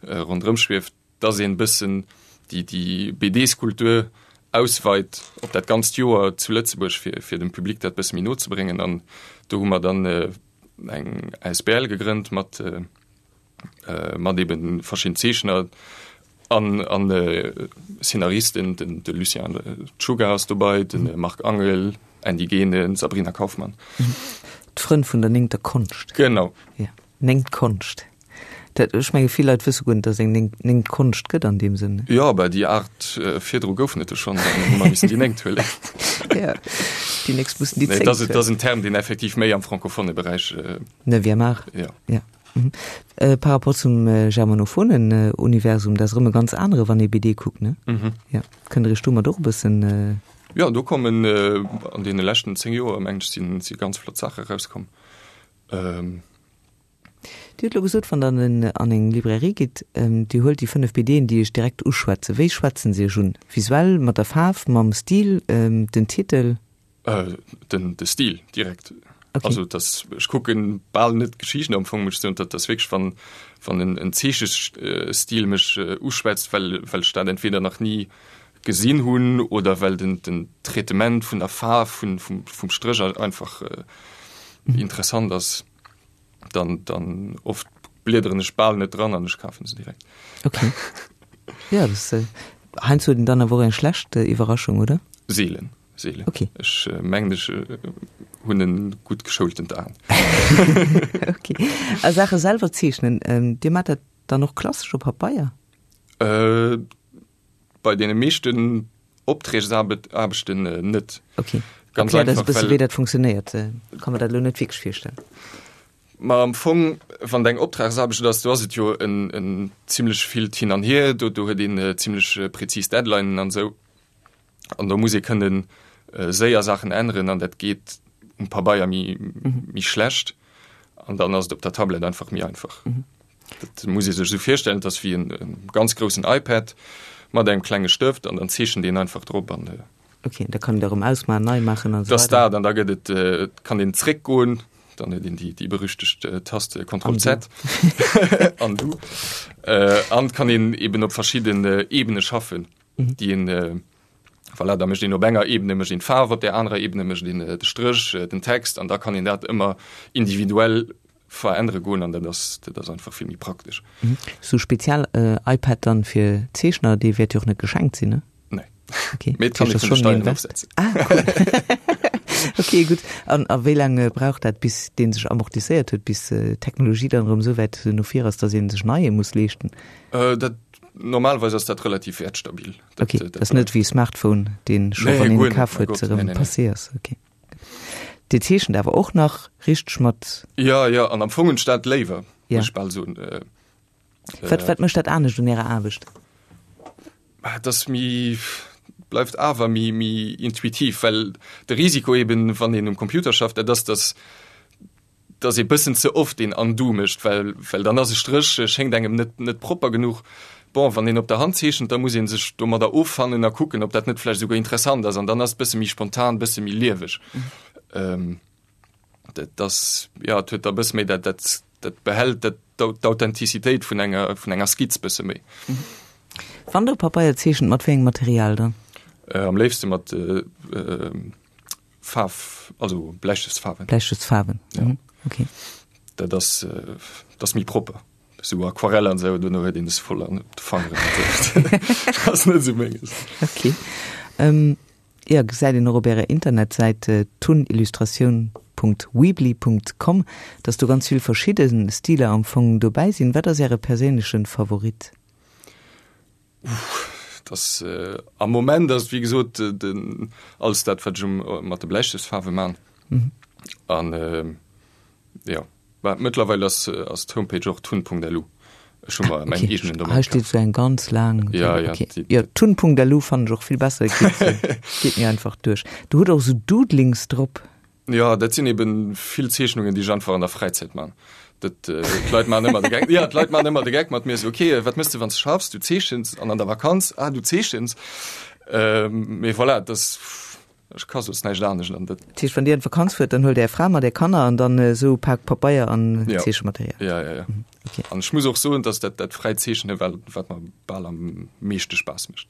Speaker 2: ronderëm schwieft. dass een bëssen déi déi BDs-Kultur ausweit op dat ganzt Joer zu Lëtzebuerg, fir fir dem Public dat bësse méi no ze bréngen. An do hu mer dann eng asbl gegrënnt mat mat eben verschidden Zeechner an an Szenaristen, den de Lucien Czuga ass dobei, de Marc Angel, Andy Genen, Sabrina Kaufmann.
Speaker 1: D'Frënn vun der néngter Konscht.
Speaker 2: Genau.
Speaker 1: Ja, néngt Konscht. Dat, ech menge vill Leit wësse guer net, datt et eng néngt Konscht gëtt an deem Sënn.
Speaker 2: Jo, bah déi aacht virdru goufen et jo schonn, dann hu mer missen déi néngt huelen.
Speaker 1: Ja, déi nächst mussen déi zéngt huelen.
Speaker 2: Nee, dat ass en Term, deen effektiv méi am francophone Beräich.
Speaker 1: Neuvième art.
Speaker 2: Ja.
Speaker 1: Ja. Par rapport zum germanophonen Universum, dat ass erëm e ganz anere wann ee BD kuckt, ne? Jo. Kënnt Der Iech domat och e bëssen.
Speaker 2: Jo, do kommen an deene leschten 10 Joer, mengen ech, sinn si ganz flott Saache erauskomm.
Speaker 1: Dir hutt elo gesot, wann Der an eng Librairie gitt, Dir huelt déi 5 BDen, déi Iech direkt uschwätzen. Wéi schwätzen se Iech un? Visuell, mat der Faarf, mam Stil, den Titel?
Speaker 2: Den de Stil direkt. Okay. Also das, ech kucken bal net d'Geschichten am Fong, muss ech soen, dat ass wierklech wann wann en en Zeechestil mech uschwätzt, well well ech dat entweder nach ni gesinn hunn oder well den den Traitement vun der Faarf vun vum vum Stréch einfach interessant ass. Dann dann oft bliederen ech bal net dran an ech kafen se direkt.
Speaker 1: Okay. Ja, das äh, heiansdo huet een dann awer och eng schlecht äh, Iwwerraschung, oder?
Speaker 2: Seelen, seelen.
Speaker 1: Okay.
Speaker 2: Ech äh, mengen ech äh, hunn en gutt geschoultent Aen.
Speaker 1: Okay. A Saache selwer zeechnen, ähm, Dir maacht dat dann och klassesch op Pabeier?
Speaker 2: Äh, bei deene meeschten Opträgsaarbechten net.
Speaker 1: Okay. Ganz Erklär das e bësse wéi dat funktionéiert. Ka mer dat elo net wierklech virstellen.
Speaker 2: Ma am Fong, wann et eng Optragsaarbecht ass, do ass et jo en, en zimlech villt Hin an Hier, do, do huet een zimlech prezis Deadlinen an esou. An do muss ee kënnen séier Saachen änneren an dat geet um Pabeier méi, méi schlecht. An dann ass et op der Tablett einfach méi einfach. Dat muss ee sech esou virstellen, et ass wéi en ganz groussen iPad mat engem klenge Stëft an dann zeechent een einfach drop an.
Speaker 1: Ok, da kann een dat erëm ausmaachen, nei maachen
Speaker 2: an esou weider. Dat ass dat an da gëtt et, et kann een zréckgoen, dann huet een déi, déi berüchtegt Taste Ctrl Z Undo an et kann een eben op verschidden Ebene schaffen, déi een, voilà, da mécht een op enger Ebene mécht een d'Faarf, op där anerer Ebene mécht een de Stréch, den Text an da kann een dat ëmmer individuell verännere goen an dat ass dat ass einfach vill méi praktesch.
Speaker 1: Sou spezial iPad dann fir Zeechner, dee wäert jo och net geschenkt sinn, ne?
Speaker 2: Nee.
Speaker 1: Okay.
Speaker 2: Mee et kann ee vun de Steieren ofsetzen.
Speaker 1: Ah, cool. Okay, gutt. An a wéi laang brauch dat, bis dee sech amortisséiert huet, bis d'Technologie dann erëm esou wäit no vir ass, datt ee sech neie muss leeschten?
Speaker 2: Dat normalerweis ass dat relativ wäertstabil.
Speaker 1: Dat, okay, dat ass net wéi e Smartphone, deen scho wann een e kaf huet, erëm passé ass. Okay. Dir zeechent awer och nach richteg mat?
Speaker 2: Jo, jo, an am Fong hunn ech dat léiwer, muss ech bal soen.
Speaker 1: Wat, wat mécht dat anescht un Ärer Aarbecht?
Speaker 2: Et ass méi, bleift awer méi, méi intuitiv, well de Risiko eben, wann een um Computer schafft, dat ass, dass dass ee bëssen ze oft een Undo mécht, well well dann ass e Stréch, schéngt engem net net propper genuch. Bon, wann een op der Hand zeechent, da muss ee sech domadder offannen a kucken, ob dat net vläicht esouguer interessant ass an dann ass et bësse méi spontan, bësse méi lieweg. Dat ass, jo, et huet da bësse méi dat dat dat behält dat d'Authentizitéit vun enger vun enger Skizz bësse méi.
Speaker 1: Wann Der op Pabeier zeechent, mat wéi engem Material dann?
Speaker 2: Am léifste mat Faarf, also Bläistëftsfaarwen.
Speaker 1: Bläistëftsfaarwen, ja. Mhm. Okay.
Speaker 2: Dat ass, äh, dat ass méi propper. Sou Aquarell an sou, duerno huet een es voll an de Fangeren. Dat ass net sou menges.
Speaker 1: Okay. Ähm, ja, gesäit een och op Ärer Internetsäit äh, tunillustratioun.weebly.com, dass do ganz vill verschidde Stiler am Fong dobäi sinn. Wat ass Äre perséinleche Favorit?
Speaker 2: Uff, das äh, am Moment ass wéi gesot äh, den alles dat wat ech um, äh, mat de Bläistëftsfaarwe man. Mhm. An äh, ja Bah, mëttlerweil ass, äh, ass d'Homepage och tun.lu. Ech hu mer mäin
Speaker 1: Okay.
Speaker 2: eegenen Domain
Speaker 1: Hei steet
Speaker 2: kaf.
Speaker 1: sou eng ganz laang.
Speaker 2: Ja, ja,
Speaker 1: Okay.
Speaker 2: déi-
Speaker 1: Ja, tun.lu fannen ech och vill besser, geet, äh, geet mir einfach duerch. Du hutt och sou Doodlings drop.
Speaker 2: Jo, dat sinn eben vill Zeechnungen, déi ech einfach an der Fräizäit man. Dat, d'Leit maachen ëmmer de Geck, jo, d'Leit maachen ëmmer de Geck mat mir, esou, ok, wat méchs de, wann s de schaffs? Du zeechens. An an der Vakanz? Ah, du zeechens. Mee voilà, dat ass, ech ka soss näischt anescht an dat.
Speaker 1: Dat heescht, wann Dir an d'Vakanz fuert, dann huelt Är Fra mat Är Kanner an dann esou e Pak Pabeier an Zeechematerial?
Speaker 2: Jo, jo, jo. An ech muss och soen, dass dat, dat fräit Zeechnen, wat, wat mer bal am meeschte Spaass mécht.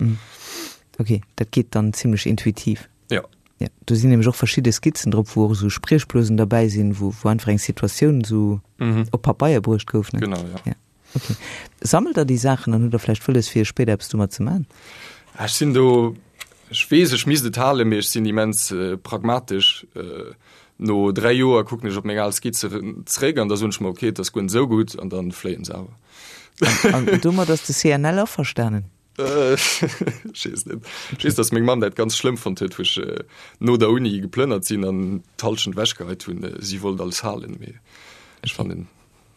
Speaker 1: Ok, dat geet dann zimlech intuitiv.
Speaker 2: Jo.
Speaker 1: Ja, do sinn nämlech och verschidde Skizzen drop, wou och esou Spriechblosen derbäi sinn, wou, wou einfach eng Situatioun esou op Pabeier bruecht gouf, ne?
Speaker 2: Genau, ja.
Speaker 1: Ja, okay. Sammelt Der déi Saachen an hutt Der vläicht wëlles, fir spéider eppes domat ze man?
Speaker 2: Ech sinn do, ech weess, ech misst et halen, mee ech sinn immens pragmatesch. No 3 Joer kucken ech op meng al Skizze zréck an da soen ech mer, okay, et ass guer net esou gutt an dann fléien se awer.
Speaker 1: An domat ass de CNL averstanen?
Speaker 2: Ech weess net. Ech weess, datt meng Mamm dat ganz schlëmm fonnt huet, wou ech no der Uni geplënnert sinn an d'Hallschent ewechgeheit hunn. Si wollt alles halen, mee ech fannen,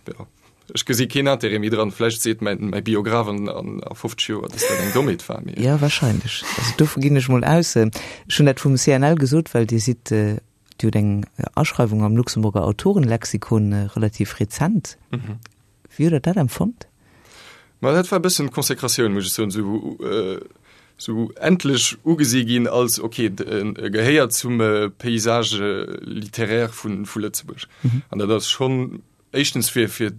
Speaker 2: jo, Ech gesi keen Intérêt méi dran. Vläicht seet mäin, mäi Biograph an, an, a 50 Joer, dass dat eng Dommheet war, mee.
Speaker 1: Jo, wahrscheinlech. Also dovu ginn ech mol aus. Ech hunn dat vum CNL gesot, well Dir sidd, Dir hutt eng Aschreiwung am Luxemburger Autorenlexikon, relativ rezent. Wéi hutt Der dat empfonnt?
Speaker 2: Ma dat war e bëssen d'Consécratioun, muss ech soen, esou, esou endlech ugesi ginn als, okay, e gehéiert zum Paysage littéraire vu, vu Lëtzebuerg. An dat ass schonn Éischtens fir fir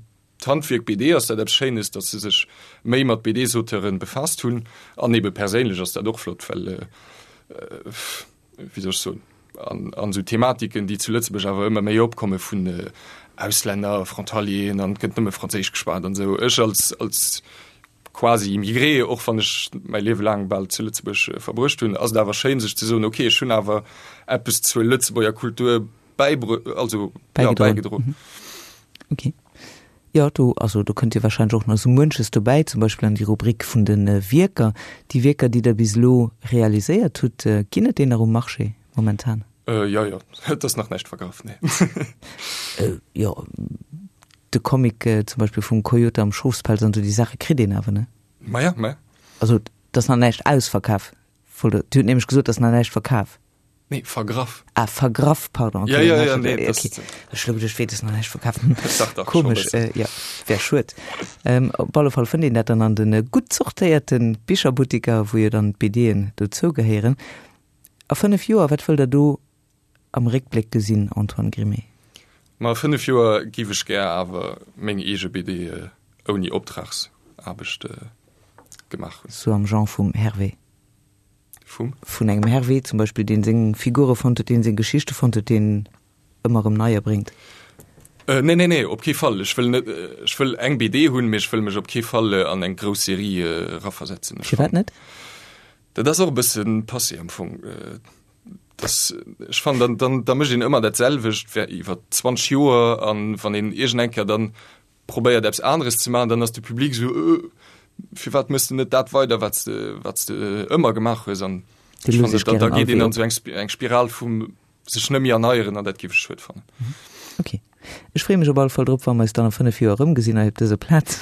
Speaker 2: d'Handwierk BD ass dat eppes Schéines, datt se sech méi mat BDs-Auteuren befaasst hunn. An ebe perséinlech ass dat och flott, well, wéi soll ech soen, an an esou Thematiken, déi zu Lëtzebuerg awer ëmmer méi opkomme vun Auslänner, Frontalieren an et gëtt nëmme Franséisch geschwat an esou. Ech als als quasi Immigré, och wann ech mäi Liewe laang bal zu Lëtzebuerg verbruecht hunn, ass et awer schéin sech ze soen, okay, ech hunn awer eppes zur Lëtzebuerger Kultur bäibrö also ja, bäigedroen.
Speaker 1: Mhm. Okay. Jo, do, also do kënnt jo wahrscheinlech och nach esou muenches dobäi, zum Beispill an déi Rubrik vun de Wierker. Déi Wierker, déi Der bis elo realiséiert hutt, ginn et déi nach um Marché momentan?
Speaker 2: Äh, jo, jo, et ass nach näischt vergraff, nee.
Speaker 1: Äh, jo, de Comic zum Beispill vum Coyote am Schofspelz an esou, déi Saache kritt een awer, ne?
Speaker 2: Maja, maja.
Speaker 1: Also, et ass nach näischt ausverkaf. Wollt Der, Dir hutt nämlech gesot, et ass nach näischt verkaf.
Speaker 2: Nee, vergraff.
Speaker 1: Ah, vergraff, pardon.
Speaker 2: Okay, ja, ja, ja, nee,
Speaker 1: okay. Ech lo geduecht, wéi, das nach näischt verkaf. Dach, dach, Komisch, äh, ja, wär schued. Ähm, op alle Fall fënnt een dat dann an den äh, gutt zortéierten Bicherbuttiker, wou jo dann d'BDen dozou gehéieren. A 5 Joer, wat wëllt der do am Réckbléck gesinn, Antoine Grimé?
Speaker 2: Ma a 5 Joer giff ech gär awer meng eege BD äh, ouni Optragsaarbecht äh, gemaach hunn.
Speaker 1: Sou am Genre vum Hervé.
Speaker 2: Vum?
Speaker 1: Vun engem Hervé zum Beispill, deen seng Figure fonnt huet, deen seng Geschichte fonnt huet, deen ëmmer erëm neier bréngt.
Speaker 2: Nee, nee, nee, op kee Fall. Ech wëll net, ech wëll eng BD hunn, mee ech wëll mech op kee Fall an eng grouss Serie eraversetzen.
Speaker 1: Firwat net?
Speaker 2: Dat ass och e bësse passé am Fong. Das, ech fannen, dann, dann, da mécht een ëmmer dat selwecht iwwer 20 Joer an wann een iergend eng Kéier dann probéiert eppes aneres ze maachen, dann ass de Public esou, Äh, firwat méchs de net dat weider, wat s de, wat s de ëmmer gemaach hues? An ech fannen, da, da geet een an esou eng, eng Spiral vum sech net méi erneieren an dat géif ech schued fannen.
Speaker 1: Ok. Ech freeë mech op alle Fall drop, wa mer eis dann a 5 Joer erëmgesinn hei op dëser Plaz,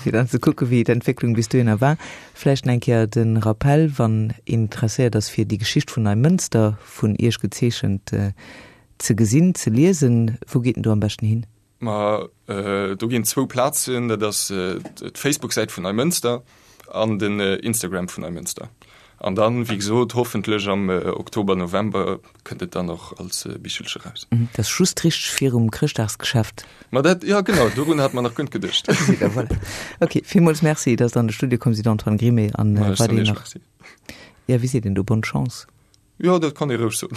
Speaker 1: fir dann ze kucke wéi d'Entwécklung bis dohinner war. Vläicht nach eng Kéier de Rappell, wann een interesséiert ass fir déi Geschicht vun Neimënster, vun Iech gezeechent, ze gesinn, ze liesen, wou geet en do am beschten hin?
Speaker 2: Ma do ginn zwou Plazen, dat ass d'Facebook-Säit vun Neimënster an den Instagram vun Neimënster. An dann, wéi gesot, hoffentlech am Oktober, November kënnt et dann och als Bichelche raus.
Speaker 1: Dat ass just richteg virum Chrëschtdagsgeschäft.
Speaker 2: Ma dat, jo genau, dorun hat mer nach guer net geduecht.
Speaker 1: Gesitt Der, voilà. Ok, villmools Merci, dass Der an de Studio komm sidd, Antoine Grimé. An weiderhin nach, jo, wéi seet een do, bonne chance.
Speaker 2: Jo, dat kann ee roueg soen.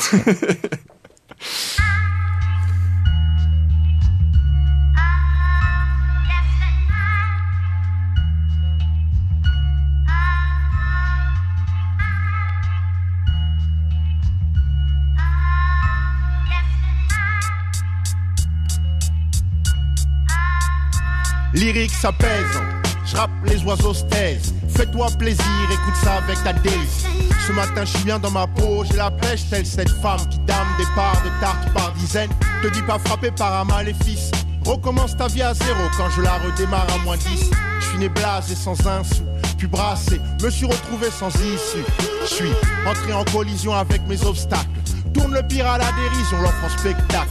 Speaker 3: Lyrique ça pèse, je rappe les oiseaux se taisent. Fais-toi plaisir, écoute ça avec ta délice. Ce matin, je suis bien dans ma peau, j'ai la pêche, telle cette femme qui dame des parts de tarte par dizaines. Te dis pas frappé par un maléfice. Recommence ta vie à zéro quand je la redémarre à moins 10. Je suis né blasé sans un sou, puis brassé, me suis retrouvé sans issue. Je suis entré en collision avec mes obstacles. Tourne le pire à la dérision, l'offre en spectacle.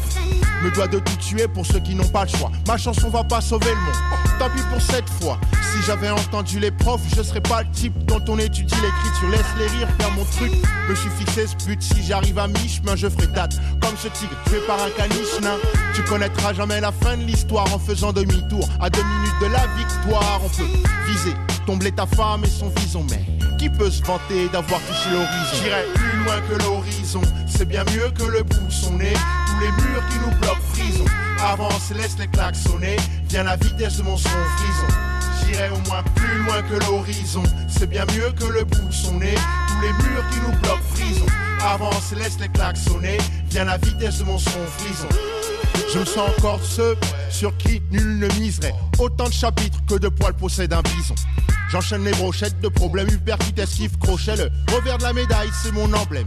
Speaker 3: Me dois de tout tuer pour ceux qui n'ont pas le choix. Ma chanson va pas sauver le monde. Tant pis pour cette fois. Si j'avais entendu les profs, je serais pas le type dont on étudie l'écriture. Laisse les rires faire mon truc. Me suis fixé ce but. Si j'arrive à mi-chemin, je ferai date. Comme ce tigre tué par un caniche nain. Tu connaîtras jamais la fin de l'histoire en faisant demi-tour. À deux minutes de la victoire, on peut viser, tomber ta femme et son vison. Mais qui peut se vanter d'avoir touché l'horizon J'irai plus loin que l'horizon. C'est bien mieux que le bout de son nez. Tous les murs qui nous bloquent, frison. Avance, laisse les claques sonner. Viens la vitesse de mon son frison. J'irai au moins plus loin que l'horizon. C'est bien mieux que le bout de son nez. Tous les murs qui nous bloquent, frison. Avance, laisse les claques sonner. Viens la vitesse de mon son frison. Je me sens encore ceux sur qui nul ne miserait. Autant de chapitres que de poils possède un bison. J'enchaîne les brochettes de problèmes, hyper qui t'esquive, crochet. Le revers de la médaille, c'est mon emblème.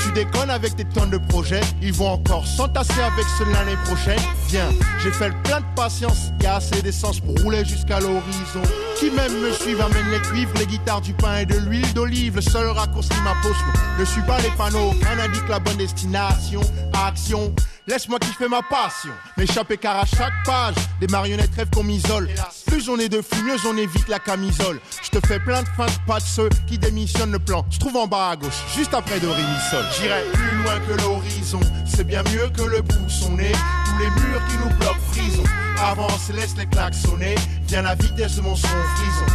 Speaker 5: Tu déconnes avec tes tonnes de projets Ils vont encore s'entasser avec ceux l'année prochaine Viens, j'ai fait le plein de patience Y a assez d'essence pour rouler jusqu'à l'horizon Qui même me suivent amène les cuivres Les guitares du pain et de l'huile d'olive Le seul raccourci ma potion Ne suis pas les panneaux Rien n'indique la bonne destination Action Laisse-moi kiffer ma passion M'échapper car à chaque page Des marionnettes rêvent qu'on m'isole Plus on est de fou, mieux on évite la camisole Je te fais plein de fins de pas de ceux qui démissionnent le plan Se trouve en bas à gauche, juste après de Rémisol J'irai plus loin que l'horizon C'est bien mieux que le bout de son nez Tous les murs qui nous bloquent frison Avance, laisse les claques sonner Viens la vitesse de mon son frison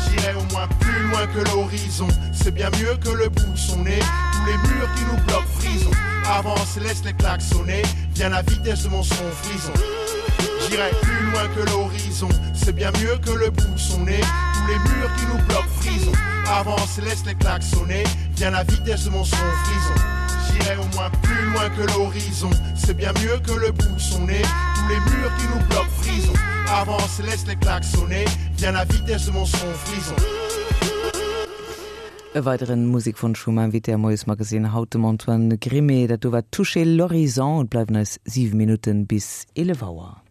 Speaker 5: J'irai au moins plus loin que l'horizon C'est bien mieux que le bout de son nez Tous les murs qui nous bloquent frison Avance, laisse les claques sonner Viens la vitesse de mon son frison J'irai plus loin que l'horizon C'est bien mieux que le bout de son nez Tous les murs qui nous bloquent frison Avance, laisse les claques sonner Viens la vitesse de mon son frison J'irai au moins plus loin que l'horizon C'est bien mieux que le bout de son nez Tous les murs qui nous bloquent frison Avance, laisse les claques sonner Viens la vitesse de mon son frison
Speaker 1: E weideren Musekwonsch vum Invité am Moiesmagazine haut, dem Antoine Grimé. Dat do war Toucher l'horizon. Et bleiwen eis 7 Minutten bis 11 Auer.